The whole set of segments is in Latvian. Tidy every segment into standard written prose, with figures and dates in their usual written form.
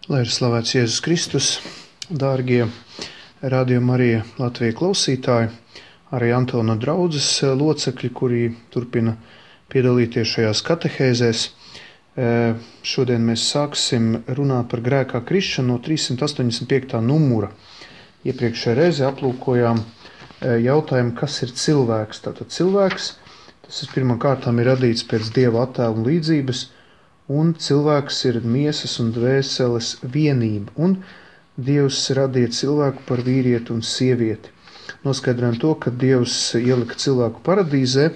Lai ir slavēts Jēzus Kristus, dārgie Radio Marija Latvijas klausītāji, arī Antona draudzes locekļi, kuri turpina piedalīties šajās katehēzēs. Šodien mēs sāksim runāt par grēkā krišanu no 385. numura. Iepriekšējā reize aplūkojām jautājumu, kas ir cilvēks. Tātad cilvēks, tas ir pirmkārtām ir radīts pēc Dieva attēla un līdzības, un cilvēks ir miesas un dvēseles vienība, un Dievs radīja cilvēku par vīrieti un sievieti. Noskaidrojam to, ka Dievs ielika cilvēku paradīzē,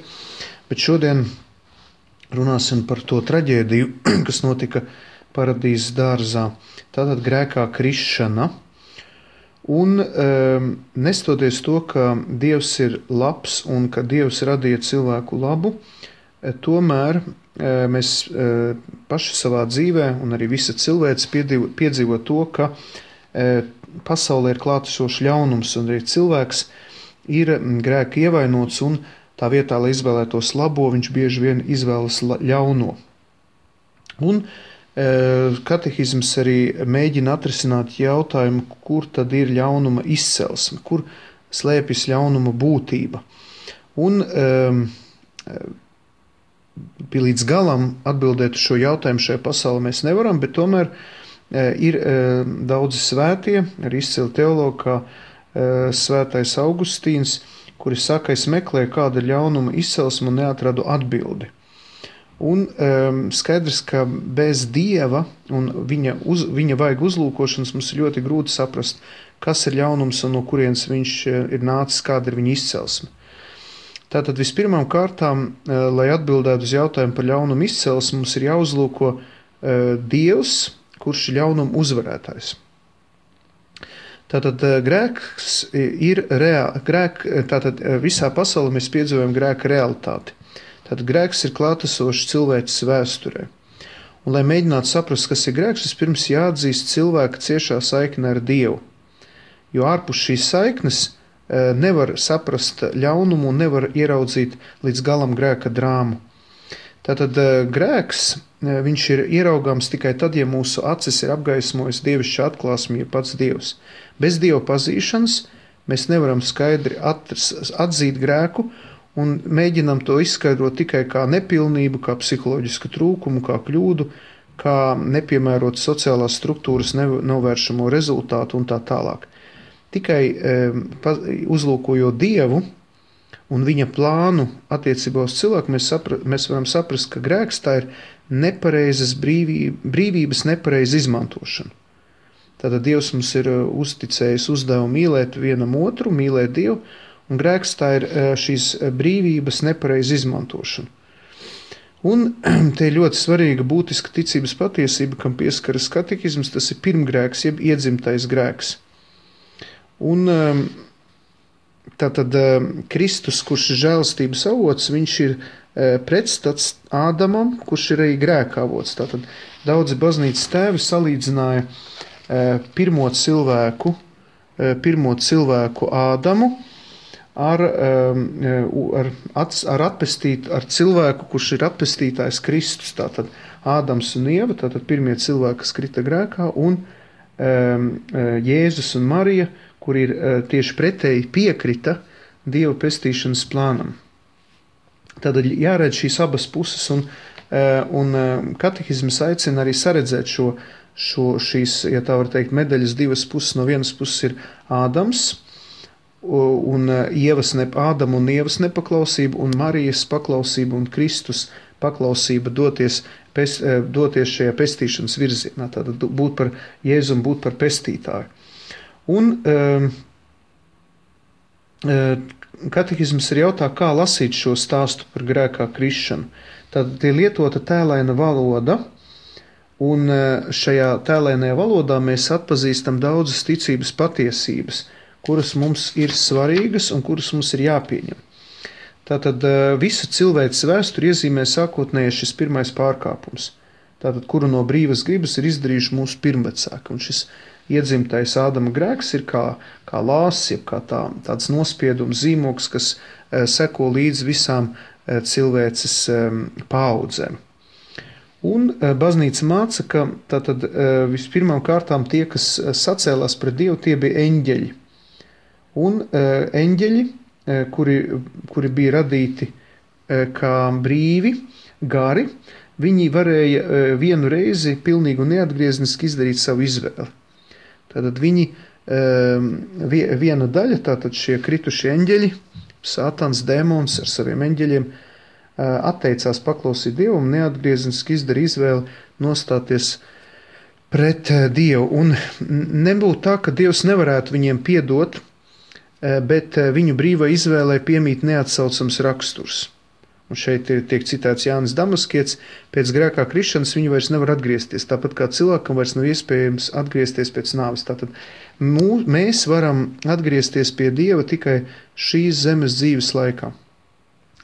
bet šodien runāsim par to traģēdiju, kas notika paradīzes dārzā. Tātad grēkā krišana. Un nestoties to, ka Dievs ir labs un ka Dievs radīja cilvēku labu, tomēr mēs paši savā dzīvē un arī visa cilvēce piedzīvo to, ka pasaulē ir klātesošs ļaunums un arī cilvēks ir grēka ievainots un tā vietā, lai izvēlētos labo, viņš bieži vien izvēlas ļauno. Un katehisms arī mēģina atrisināt jautājumu, kur tad ir ļaunuma izcelsme, kur slēpjas ļaunuma būtība. Un līdz galam atbildēt uz šo jautājumu šajā pasaulē mēs nevaram, bet tomēr ir daudzi svētie, arī izcili teologi, kā svētais Augustīns, kuri saka, es meklēju kāda ļaunuma izcelsme un neatradu atbildi. Un skaidrs, ka bez Dieva un viņa vaiga uzlūkošanas mums ir ļoti grūti saprast, kas ir ļaunums un no kurienes viņš ir nācis, kāda ir viņa izcelsme. Tātad vispirmām kārtām, lai atbildētu uz jautājumu par ļaunumu izcelsmi, mums ir jāuzlūko Dievs, kurš ir ļaunuma uzvarētājs. Tātad grēks ir tātad visā pasaulē mēs piedzīvojam grēka realitāti. Tātad grēks ir klātesošs cilvēces vēsturē. Un, lai mēģinātu saprast, kas ir grēks, vispirms jāatzīst cilvēka ciešā saikne ar Dievu. Jo ārpus šīs saiknes nevar saprast ļaunumu un nevar ieraudzīt līdz galam grēka drāmu. Tātad grēks, viņš ir ieraugāms tikai tad, ja mūsu acis ir apgaismojis dievišķa atklāsme, ja pats Dievs. Bez Dieva pazīšanas mēs nevaram skaidri atzīt grēku un mēģinam to izskaidrot tikai kā nepilnību, kā psiholoģisku trūkumu, kā kļūdu, kā nepiemērot sociālās struktūras novēršamo rezultātu un tā tālāk. Tikai uzlūkojot Dievu un viņa plānu attiecībā uz cilvēku, mēs varam saprast, ka grēks tā ir nepareizas brīvības nepareiza izmantošana. Tātad Dievs mums ir uzticējis uzdevumu mīlēt vienam otru, mīlēt Dievu, un grēks tā ir šīs brīvības nepareiza izmantošana. Un te ir ļoti svarīga būtiska ticības patiesība, kam pieskaras katehisms, tas ir pirmgrēks, jeb iedzimtais grēks. Un tātad Kristus, kurš ir žēlastības avots, viņš ir pretstats Ādamam, kurš ir arī grēka avots. Tātad daudzi baznīcas tēvi salīdzināja pirmo cilvēku Ādamu ar cilvēku, kurš ir atpestītājs Kristus. Tātad Ādams un Ieva, tātad pirmie cilvēki, kas krita grēkā, un Jēzus un Marija, kur ir tieši pretēji piekrita Dieva pestīšanas plānam. Tātad jāredz šīs abas puses, un katehisms aicina arī saredzēt šīs, ja tā var teikt, medaļas divas puses. No vienas puses ir Ādams, un Ādama un Ievas nepaklausība, un Marijas paklausība un Kristus paklausība doties šajā pestīšanas virzienā, tātad būt par Jēzu un būt par pestītāju. Un katehisms ir jautā, kā lasīt šo stāstu par grēkā krišanu. Tad ir lietota tēlaina valoda, un šajā tēlainajā valodā mēs atpazīstam daudzas ticības patiesības, kuras mums ir svarīgas un kuras mums ir jāpieņem. Tātad visu cilvēces vēsturi iezīmē sākotnēji šis pirmais pārkāpums, tātad kuru no brīvas gribas ir izdarījuši mūsu pirmvecāki, un šis iedzimtais Ādama grēks ir kā lāsis, jeb kā tāds nospiedums zīmogs, kas seko līdz visām cilvēces paaudzēm. Un baznīca māca, ka tātad vispirmām kārtām tie, kas sacēlās pret Dievu, tie bija eņģeļi. Un eņģeļi, kuri bija radīti kā brīvi, gari, viņi varēja vienu reizi pilnīgi un neatgriezniski izdarīt savu izvēli. Tātad viņi, viena daļa, tātad šie kritušie eņģeļi, Sātans, dēmons ar saviem eņģeļiem, atteicās paklausīt Dievu un neatgriezniski izdarīja izvēli nostāties pret Dievu. Un nebūtu tā, ka Dievs nevarētu viņiem piedot, bet viņu brīvai izvēlē piemīt neatsaucams raksturs. Un šeit tiek citēts Jānis Damaskietis, pēc grēkā krišanas viņi vairs nevar atgriezties, tāpat kā cilvēkam vairs nav iespējams atgriezties pēc nāves. Tātad mēs varam atgriezties pie Dieva tikai šīs zemes dzīves laikā.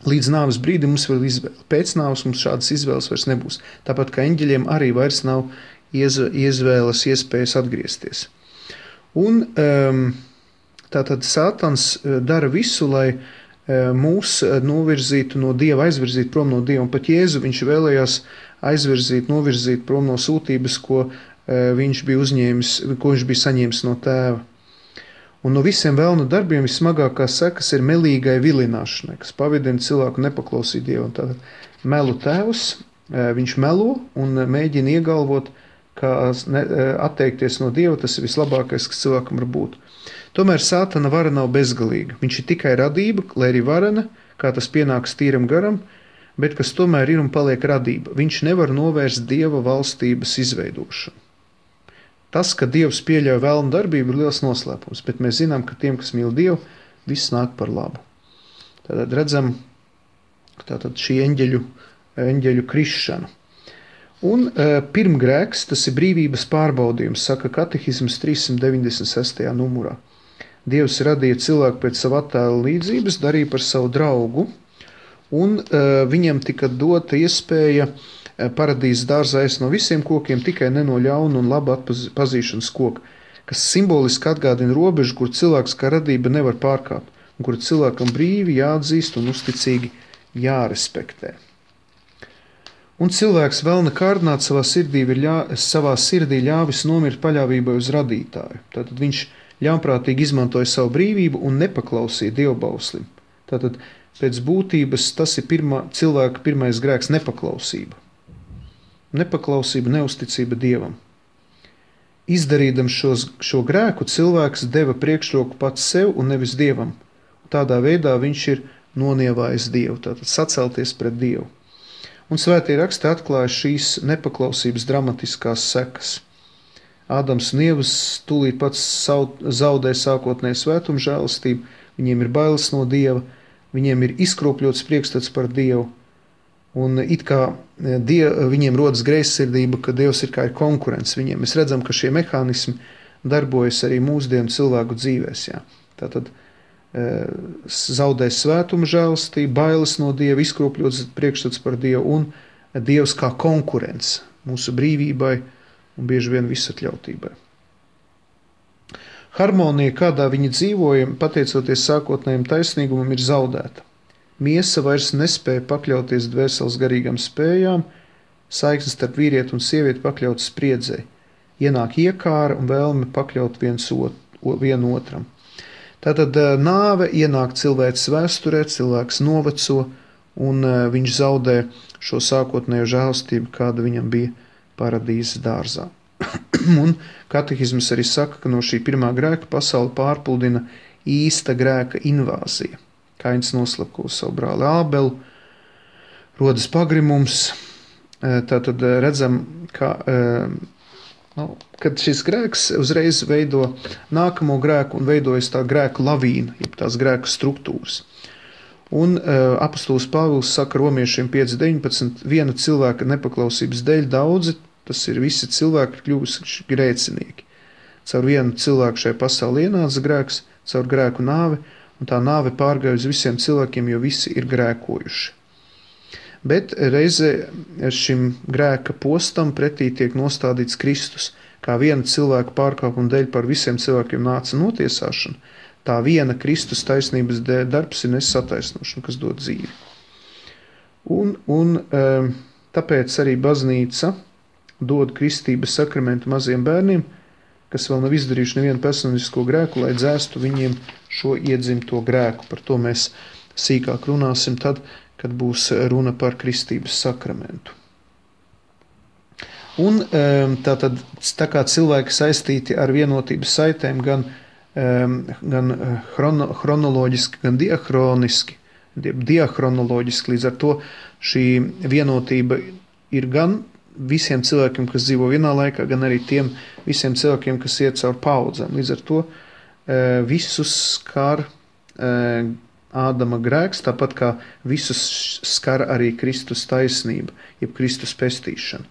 Līdz nāves brīdim mums vēl izvēle. Pēc nāves mums šādas izvēles vairs nebūs. Tāpat kā eņģeļiem arī vairs nav izvēles iespējas atgriezties. Un tātad Sātans dara visu, lai mūs novirzītu no Dieva, aizvirzītu prom no Dieva. Un pat Jēzu viņš vēlējās novirzīt prom no sūtības, ko viņš bija saņēmis no Tēva. Un no visiem vēlna darbiem vismagākā sekas ir melīgai vilināšanai, kas pavidina cilvēku nepaklausīt Dievu. Tātad melu tēvs, viņš melo un mēģina iegalvot, ka atteikties no Dieva, tas ir vislabākais, kas cilvēkam var būt. Tomēr Sātana vara nav bezgalīga. Viņš ir tikai radība, lai arī varena, kā tas pienāks tīram garam, bet kas tomēr ir un paliek radība. Viņš nevar novērst Dieva valstības izveidošanu. Tas, ka Dievs pieļauj vēlnu darbību, ir liels noslēpums, bet mēs zinām, ka tiem, kas mīl Dievu, viss nāk par labu. Tātad redzam šī eņģeļu krišanu. Un pirmgrēks, tas ir brīvības pārbaudījums, saka katehisms 396. numurā. Dievs radīja cilvēku pēc sava attēla līdzības, darīja par savu draugu, un viņam tika dota iespēja paradīzes dārzā ēst no visiem kokiem, tikai ne no ļauna un laba pazīšanas koka, kas simboliski atgādina robežu, kur cilvēks kā radība nevar pārkāpt, un kur cilvēkam brīvi jāatzīst un uzticīgi jārespektē. Un cilvēks vēlna kārdināt savā sirdī ļāvis nomirt paļāvībai uz radītāju. Tātad viņš ļaunprātīgi izmantoja savu brīvību un nepaklausīja dievbauslim. Tātad pēc būtības tas ir cilvēka pirmais grēks - nepaklausība. Nepaklausība, neusticība Dievam. Izdarīdams šo grēku, cilvēks deva priekšroku pats sev un nevis Dievam. Tādā veidā viņš ir nonievājis Dievu, tātad sacelties pret Dievu. Un svētie raksti atklāja šīs nepaklausības dramatiskās sekas. Ādams un Ievas tūlīt pats zaudē sākotnēju svētumu žēlastību, viņiem ir bailes no Dieva, viņiem ir izkropļots priekšstats par Dievu, un it kā viņiem rodas greizsirdība, ka Dievs ir kā ir konkurents viņiem. Mēs redzam, ka šie mehānismi darbojas arī mūsdienu cilvēku dzīvēs. Jā. Tātad zaudēs svētuma žēlastību, bailes no Dieva, izkropļots priekšstats par Dievu un Dievs kā konkurents mūsu brīvībai un bieži vien visatļautībai. Harmonija, kādā viņi dzīvoja, pateicoties sākotnējiem taisnīgumam, ir zaudēta. Miesa vairs nespēja pakļauties dvēseles garīgām spējām, saiknes starp vīrieti un sievieti pakļautas spriedzei. Ienāk iekāra un vēlme pakļaut vienu otram. Tātad nāve ienāk cilvēks vēsturē, cilvēks noveco, un viņš zaudē šo sākotnējo žēlastību, kāda viņam bija paradīzes dārzā. Un katehisms arī saka, ka no šī pirmā grēka pasauli pārpludina īsta grēka invāzija. Kains noslapko savu brāli Ābelu, rodas pagrimums. Tātad redzam, ka kad šis grēks uzreiz veido nākamo grēku un veidojas tā grēku lavīna, jeb tās grēku struktūras. Un apostols Pāvils saka romiešiem 5.19, viena cilvēka nepaklausības dēļ daudzi, tas ir visi cilvēki kļuvuši grēcinieki. Caur vienu cilvēku šai pasaulē ienāca grēks, caur grēku nāvi, un tā nāve pārgāja uz visiem cilvēkiem, jo visi ir grēkojuši. Bet reizē šim grēka postam pretī tiek nostādīts Kristus, kā viena cilvēka pārkāpuma dēļ par visiem cilvēkiem nāca notiesāšana, tā viena Kristus taisnības darbs ir nesataisnošana, kas dod dzīvi. Un tāpēc arī baznīca dod kristības sakramentu maziem bērniem, kas vēl nav izdarījuši nevienu personisko grēku, lai dzēstu viņiem šo iedzimto grēku. Par to mēs sīkāk runāsim tad, kad būs runa par kristības sakramentu. Un tā kā cilvēki saistīti ar vienotības saitēm gan chronoloģiski, gan diachronoloģiski, līdz ar to šī vienotība ir gan visiem cilvēkiem, kas dzīvo vienā laikā, gan arī tiem visiem cilvēkiem, kas iet caur paudzēm. Līdz ar to visus skar Ādama grēks, tāpat kā visus skar arī Kristus taisnība, jeb Kristus pestīšana.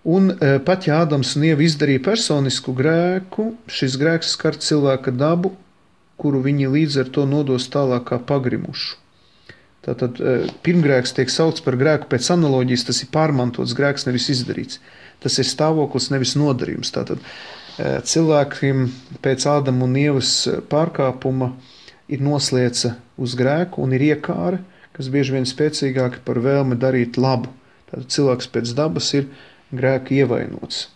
Un pat ja Ādams un Ieva izdarīja personisku grēku, šis grēks skar cilvēka dabu, kuru viņi līdz ar to nodos tālāk kā pagrimušu. Tātad pirmgrēks tiek saukts par grēku pēc analoģijas, tas ir pārmantots grēks, nevis izdarīts. Tas ir stāvoklis, nevis nodarījums. Tātad cilvēkiem pēc Ādama un Ievas pārkāpuma ir noslieca uz grēku un ir iekāre, kas bieži vien spēcīgāki par vēlmi darīt labu. Tātad cilvēks pēc dabas ir grēka ievainots.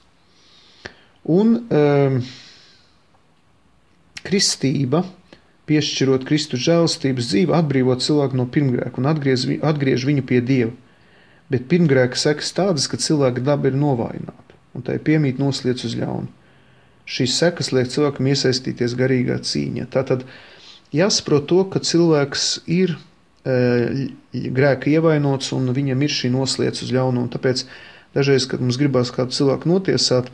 Un kristība, piešķirot Kristus žēlastības dzīvi, atbrīvot cilvēku no pirmgrēka un atgriež viņu pie Dieva. Bet pirmgrēka sekas tādas, ka cilvēka daba ir novājināta, un tai piemīt nosliec uz ļaunu. Šīs sekas liek cilvēkam iesaistīties garīgā cīņā. Tātad jāsaprot to, ka cilvēks ir grēka ievainots un viņam ir šī nosliec uz ļaunu, un tāpēc dažreiz, kad mums gribās kādu cilvēku notiesāt,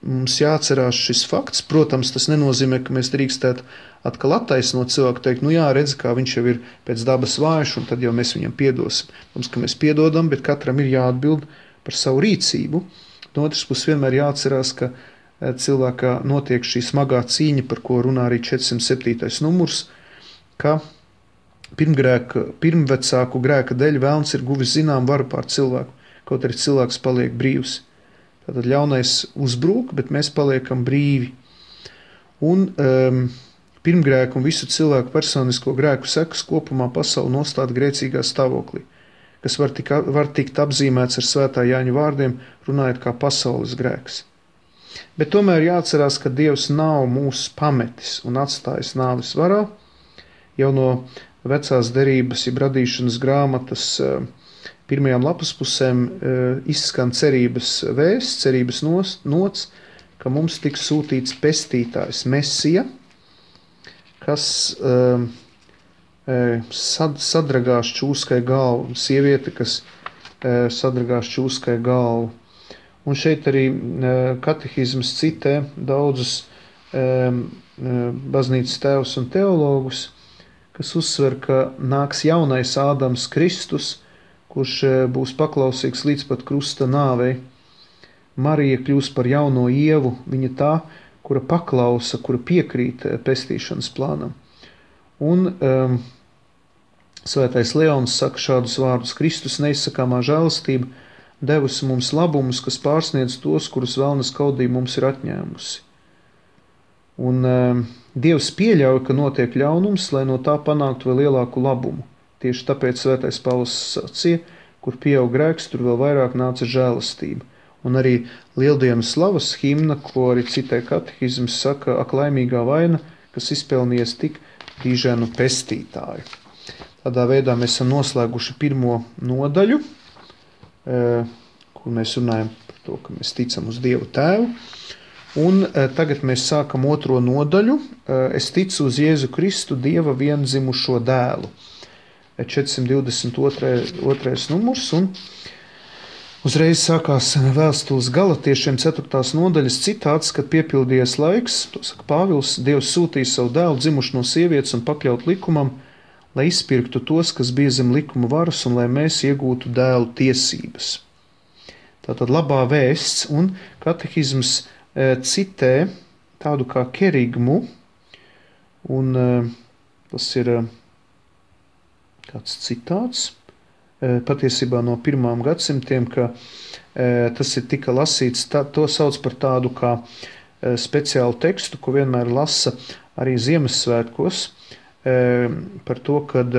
mums jāatcerās šis fakts. Protams, tas nenozīmē, ka mēs drīkstētu atkal attaisnot cilvēku, teikt, nu jā, redz, kā viņš jau ir pēc dabas vājš, un tad jau mēs viņam piedosim. Mums, ka mēs piedodam, bet katram ir jāatbild par savu rīcību. No otras puses vienmēr jāatcerās, ka cilvēkā notiek šī smagā cīņa, par ko runā arī 407. numurs, ka pirmvecāku grēka dēļ velns ir guvis zinām varu pār cilvēku, kaut arī cilvēks paliek brīvs. Tātad ļaunais uzbrūk, bet mēs paliekam brīvi. Un pirmgrēku un visu cilvēku personisko grēku sekas kopumā pasauli nostāda grēcīgā stāvoklī, kas var tikt apzīmēts ar svētā Jāņa vārdiem, runājot kā pasaules grēks. Bet tomēr jāatcerās, ka Dievs nav mūs pametis un atstājis nāves varā. Jau no vecās derības, jeb radīšanas grāmatas pirmajām lapas pusēm izskan cerības vēsts, cerības nots, ka mums tiks sūtīts pestītājs Mesija, kas sadragās čūskai galvu, sieviete, kas sadragās čūskai galvu. Un šeit arī katehisms citē daudzus baznīcas tēvus un teologus, kas uzsver, ka nāks jaunais Ādams Kristus, kurš būs paklausīgs līdz pat krusta nāvei. Marija kļūs par jauno Ievu, viņa tā, kura paklausa, kura piekrīt pestīšanas plānam. Un svētais Leons saka šādus vārdus: Kristus neizsakāmā žēlastība devusi mums labumus, kas pārsniedz tos, kurus vēlnes kaudība mums ir atņēmusi. Un Dievs pieļauj, ka notiek ļaunums, lai no tā panāktu vēl lielāku labumu. Tieši tāpēc svētais Pāvils sacīja, kur pieaug grēks, tur vēl vairāk nāca žēlastība. Un arī lieldienas slavas himna, ko arī citē katehisms, saka: ak, laimīgā vaina, kas izpelnījies tik dīžēnu pestītāju. Tādā veidā mēs esam noslēguši pirmo nodaļu, kur mēs runājam par to, ka mēs ticam uz Dievu Tēvu. Un tagad mēs sākam otro nodaļu. Es ticu uz Jēzu Kristu, Dieva viendzimušo dēlu. 422. numurs, un uzreiz sākās vēstules Galatiešiem 4. nodaļas citāts, kad piepildījies laiks, to saka Pāvils, Dievs sūtīja savu dēlu dzimušu no sievietes un pakļaut likumam, lai izpirktu tos, kas bija zem likuma varas, un lai mēs iegūtu dēlu tiesības. Tātad labā vēsts, un katehisms citē tādu kā kerigmu, un tas ir kāds citāts, patiesībā no 1. gadsimtiem, ka tas ir tika lasīts, to sauc par tādu kā speciālu tekstu, ko vienmēr lasa arī Ziemassvētkos, par to, kad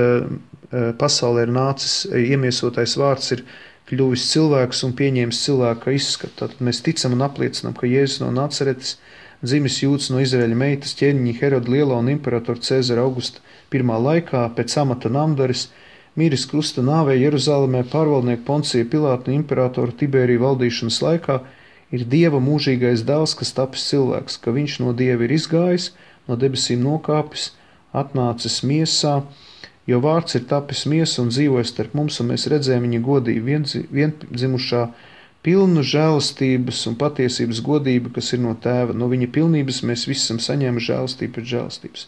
pasaulē ir nācis iemiesotais vārds ir kļuvis cilvēks un pieņēmis cilvēka izskatu. Tātad mēs ticam un apliecinām, ka Jēzus no Nacaretes, dzimis Jūds no Izraēļa meitas ķēniņa Heroda Lielā un imperatora Cēzara Augusta pirmā laikā, pēc amata namdaris, mīris krusta nāvē Jeruzalemē pārvaldnieku Poncija Pilāta un imperatora Tiberija valdīšanas laikā, ir Dieva mūžīgais dēls, kas tapis cilvēks, ka viņš no Dieva ir izgājis, no debesīm nokāpis, atnācis miesā, jo vārds ir tapis miesa un dzīvojas starp mums, un mēs redzējām viņa godību, viendzimušā pilnu žēlastības un patiesības godību, kas ir no tēva. No viņa pilnības mēs visi esam saņēmuši žēlastību pēc žēlastības.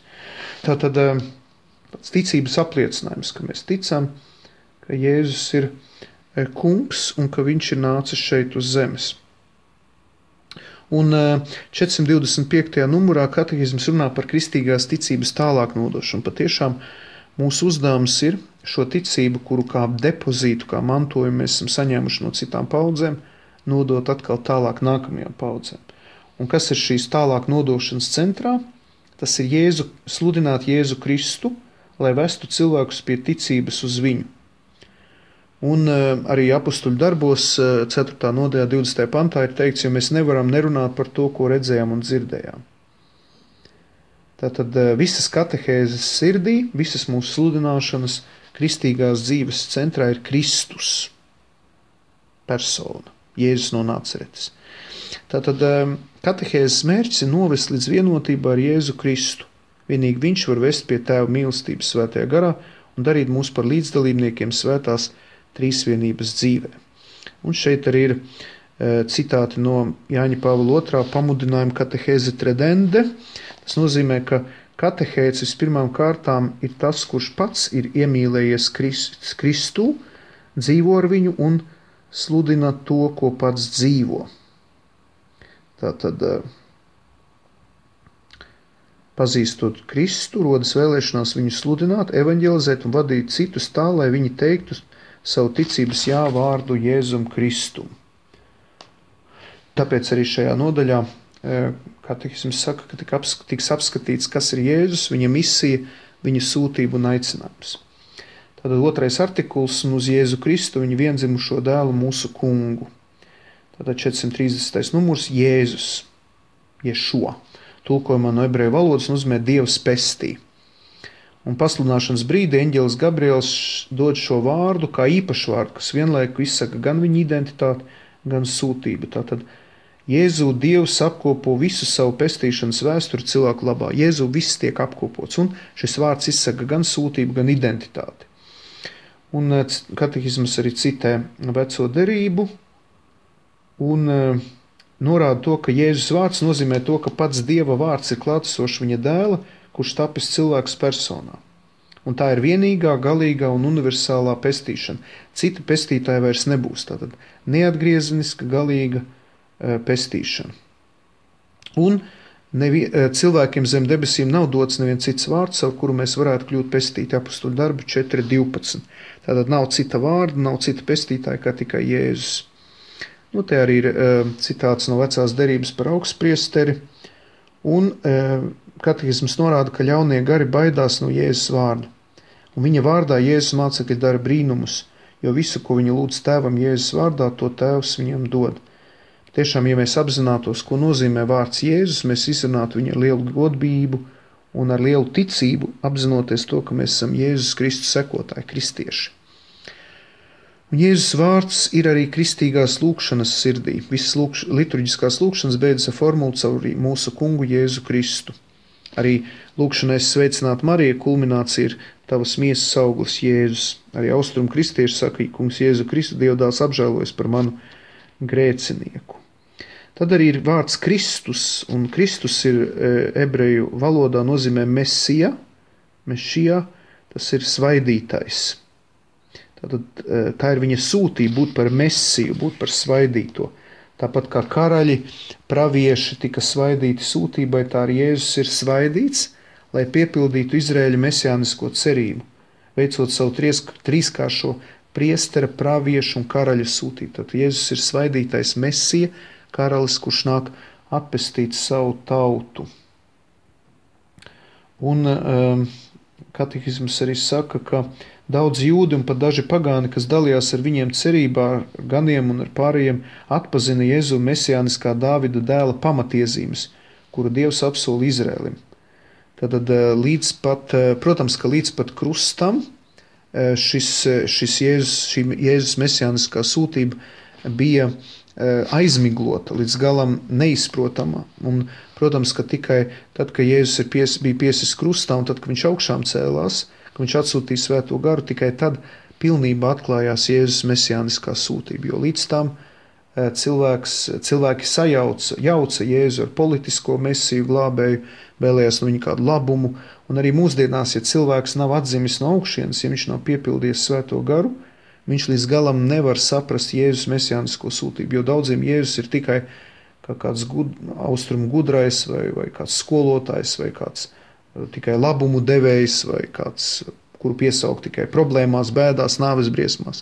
Tātad ticības apliecinājums, ka mēs ticam, ka Jēzus ir kungs un ka viņš ir nācis šeit uz zemes. Un 425. numurā katehisms runā par kristīgās ticības tālāk nodošanu. Patiešām mūsu uzdevums ir šo ticību, kuru kā depozītu, kā mantojumu mēs esam saņēmuši no citām paudzēm, nodot atkal tālāk nākamajām paudzēm. Un kas ir šīs tālāk nodošanas centrā? Tas ir sludināt Jēzu Kristu, lai vestu cilvēkus pie ticības uz viņu. Un arī apustuļu darbos 4. nodaļā 20. pantā ir teikts, jo mēs nevaram nerunāt par to, ko redzējām un dzirdējām. Tātad visas katehēzes sirdī, visas mūsu sludināšanas kristīgās dzīves centrā ir Kristus persona, Jēzus no Nacaretes. Tātad katehēzes mērķis ir novest līdz vienotībā ar Jēzu Kristu. Vienīgi viņš var vest pie Tēva mīlestības svētajā garā un darīt mūs par līdzdalībniekiem svētās trīsvienības dzīvē. Un šeit arī ir citāti no Jāņa Pāvila II pamudinājuma katehēze tredende. Tas nozīmē, ka katehēts vispirmām kārtām ir tas, kurš pats ir iemīlējies Kristu, dzīvo ar viņu un sludina to, ko pats dzīvo. Tātad, pazīstot Kristu, rodas vēlēšanās viņu sludināt, evaņģelizēt un vadīt citus tā, lai viņi teiktu savu ticības jā vārdu Jēzum Kristum. Tāpēc arī šajā nodaļā katehisms saka, ka tiks apskatīts, kas ir Jēzus, viņa misija, viņa sūtība un aicinājums. Tātad otrais artikuls un uz Jēzu Kristu, viņa viendzimušo dēlu mūsu kungu. Tātad 430. numurs Jēzus, Ješua. Tulkojumā no ebreju valodas nozīmē Dievs pestī. Un pasludināšanas brīdī eņģelis Gabriels dod šo vārdu kā īpašu vārdu, kas vienlaiku izsaka gan viņa identitāti, gan sūtību. Tātad Jēzu Dievs apkopo visu savu pestīšanas vēsturi cilvēku labā. Jēzu viss tiek apkopots, un šis vārds izsaka gan sūtību, gan identitāti. Un katehisms arī citē veco derību un norāda to, ka Jēzus vārds nozīmē to, ka pats Dieva vārds ir klātesošs viņa dēla, kurš tapis cilvēks personā. Un tā ir vienīgā, galīgā un universālā pestīšana. Cita pestītāja vairs nebūs. Tātad neatgriezeniska, galīga pestīšana. Un cilvēkiem zem debesīm nav dots neviens cits vārds, ar kuru mēs varētu kļūt pestīti. Apustuļu darbu 4.12. Tātad nav cita vārda, nav cita pestītāja kā tikai Jēzus. Nu, te arī ir citāts no vecās derības par augstpriesteri. Un katehisms norāda, ka ļaunie gari baidās no Jēzus vārda. Un viņa vārdā Jēzus mācekļi dara brīnumus, jo visu, ko viņi lūdz tēvam Jēzus vārdā, to tēvs viņam dod. Tiešām, ja mēs apzinātos, ko nozīmē vārds Jēzus, mēs izrunātu viņu ar lielu godbību un ar lielu ticību, apzinoties to, ka mēs esam Jēzus Kristus sekotāji, kristieši. Un Jēzus vārds ir arī kristīgās lūkšanas sirdī. Visas liturģiskās lūkšanas beidzas ar formulu caur mūsu kungu Jēzu Kristu. Arī lūkšanai sveicināt Mariju kulminācija ir tavas miesas auglis Jēzus. Arī austrumu kristieši saka, kungs Jēzu Kristu, Dievdēls apžēlojas par manu grēcinieku. Tad arī ir vārds Kristus, un Kristus ir ebreju valodā nozīmē mesija, mešija, tas ir svaidītais. Tātad, tā ir viņa sūtība būt par mesiju, būt par svaidīto. Tāpat kā karaļi, pravieši tika svaidīti sūtībai, tā arī Jēzus ir svaidīts, lai piepildītu Izraēļa mesijānisko cerību, veicot savu trīskāršo priestera, praviešu un karaļa sūtību. Tātad Jēzus ir svaidītais mesija, karalis, kurš nāk atpestīt savu tautu. Un katehisms arī saka, ka daudz jūdi un pat daži pagāni, kas dalījās ar viņiem cerībā, ar ganiem un ar pārējiem, atpazina Jēzu mesijāniskā Dāvida dēla pamatiezīmes, kuru Dievs apsola Izrēlim. Tātad protams, ka līdz pat krustam šī Jēzus mesijāniskā sūtība bija aizmiglota, līdz galam neizprotama. Un, protams, ka tikai tad, kad Jēzus bija piesis krustā un tad, kad viņš augšām cēlās, kad viņš atsūtīja Svēto garu, tikai tad pilnībā atklājās Jēzus mesijāniskā sūtība. Jo līdz tam cilvēki jauca Jēzu ar politisko mesiju glābēju, vēlējās no viņa kādu labumu, un arī mūsdienās, ja cilvēks nav atzimis no augšienes, ja viņš nav piepildījis Svēto garu, viņš līdz galam nevar saprast Jēzus mesijānisko sūtību, jo daudziem Jēzus ir tikai kāds austrumu gudrais, vai kāds skolotājs, vai kāds tikai labumu devējs, vai kāds, kuru piesaukt tikai problēmās, bēdās, nāves briesmās.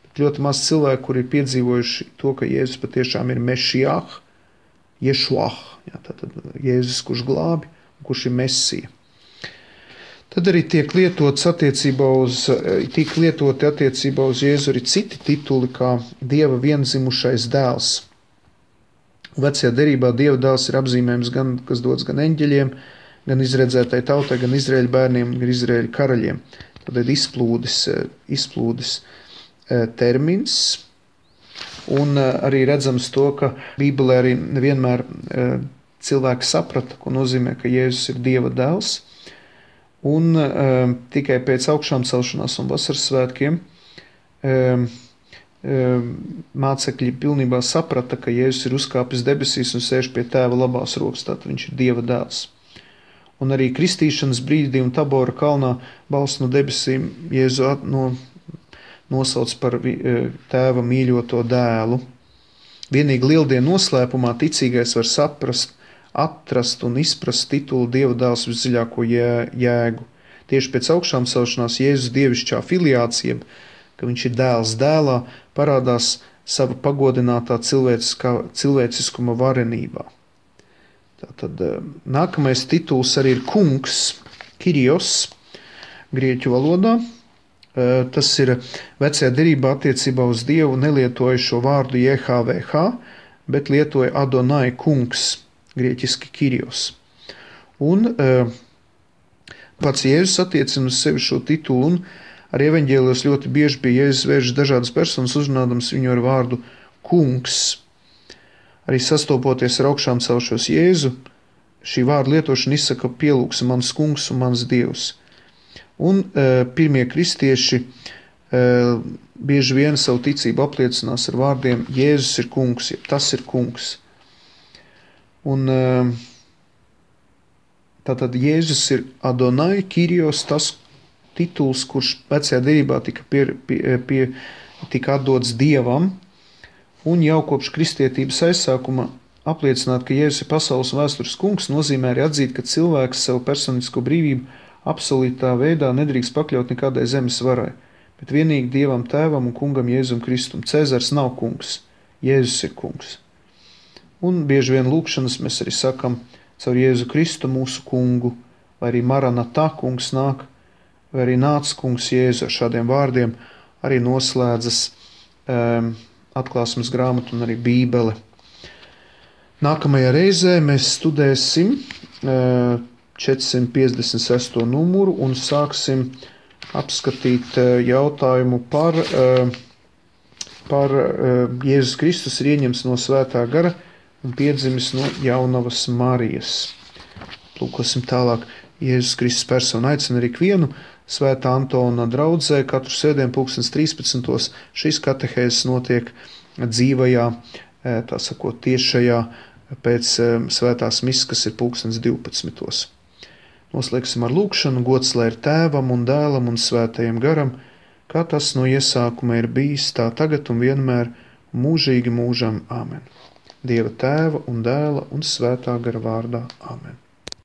Bet ļoti maz cilvēku, kuri ir piedzīvojuši to, ka Jēzus patiešām ir Mešiah, Ješuah, tātad Jēzus, kurš glābi, kurš ir Mesija. Tad arī tiek lietoti attiecībā uz Jēzu arī citi tituli, kā Dieva vienzimušais dēls. Vecajā derībā Dieva dēls ir apzīmējums, kas dots gan eņģeļiem, gan izredzētai tautai, gan Izraēļa bērniem, gan Izraēļa karaļiem. Tad ir izplūdes termins, un arī redzams to, ka Bībelē arī nevienmēr cilvēki saprata, ko nozīmē, ka Jēzus ir Dieva dēls. Un tikai pēc augšām celšanās un vasaras svētkiem mācekļi pilnībā saprata, ka Jēzus ir uzkāpis debesīs un sēž pie Tēva labās rokas, tātad viņš ir Dieva dēls. Un arī kristīšanas brīdī un Tabora kalnā balss no debesīm Jēzu nosauc par Tēva mīļoto dēlu. Vienīgi lieldienu noslēpumā ticīgais var atrast un izprast titulu Dieva dēls visdziļāko jēgu. Tieši pēc augšām celšanās Jēzus dievišķā filiācija, ka viņš ir dēls dēlā, parādās sava pagodinātā cilvēciskuma varenībā. Tātad nākamais tituls arī ir kungs, Kyrios, grieķu valodā. Tas ir vecajā derībā attiecībā uz Dievu nelietoja šo vārdu JHVH, bet lietoja Adonai kungs, grieķiski Kyrios. Un pats Jēzus attiecina uz sevi šo titulu, un arī evaņģēlijos ļoti bieži pie Jēzus vēršas dažādas personas, uzrunādams viņu ar vārdu kungs. Arī sastopoties ar augšām celšos Jēzu, šī vārda lietošana izsaka pielūgsi mans kungs un mans Dievs. Un pirmie kristieši bieži vien savu ticību apliecinās ar vārdiem Jēzus ir kungs, jeb tas ir kungs. Un tātad Jēzus ir Adonai, Kyrios, tas tituls, kurš vecajā derībā tika atdots Dievam, un jau kopš kristietības aizsākuma apliecināt, ka Jēzus ir pasaules vēstures kungs, nozīmē arī atzīt, ka cilvēks savu personisko brīvību absolūtā veidā nedrīkst pakļaut nekādai zemes varai, bet vienīgi Dievam Tēvam un kungam Jēzum Kristum. Cēzars nav kungs, Jēzus ir kungs. Un bieži vien lūkšanas mēs arī sakam caur Jēzu Kristu mūsu kungu, vai arī Maranatā kungs nāk, vai arī nāc kungs Jēzu. Ar šādiem vārdiem arī noslēdzas atklāsmes grāmata un arī Bībele. Nākamajā reizē mēs studēsim 456. numuru un sāksim apskatīt jautājumu par Jēzus Kristus ir ieņemts no Svētā gara un piedzimis no jaunavas Marijas. Lūkosim tālāk. Jēzus Kristus persona aicina arī ikvienu Svētā Antona draudzē katru svētdienu 13. Šīs katehēzes notiek dzīvajā, tā sakot, tiešajā pēc svētās misas, kas ir 12. Noslēgsim ar lūkšanu. Gods lai ir Tēvam un Dēlam un Svētajam garam, kā tas no iesākuma ir bijis, tā tagad un vienmēr, mūžīgi mūžam. Āmen. Dieva Tēva un Dēla un Svētā gara vārdā. Āmen.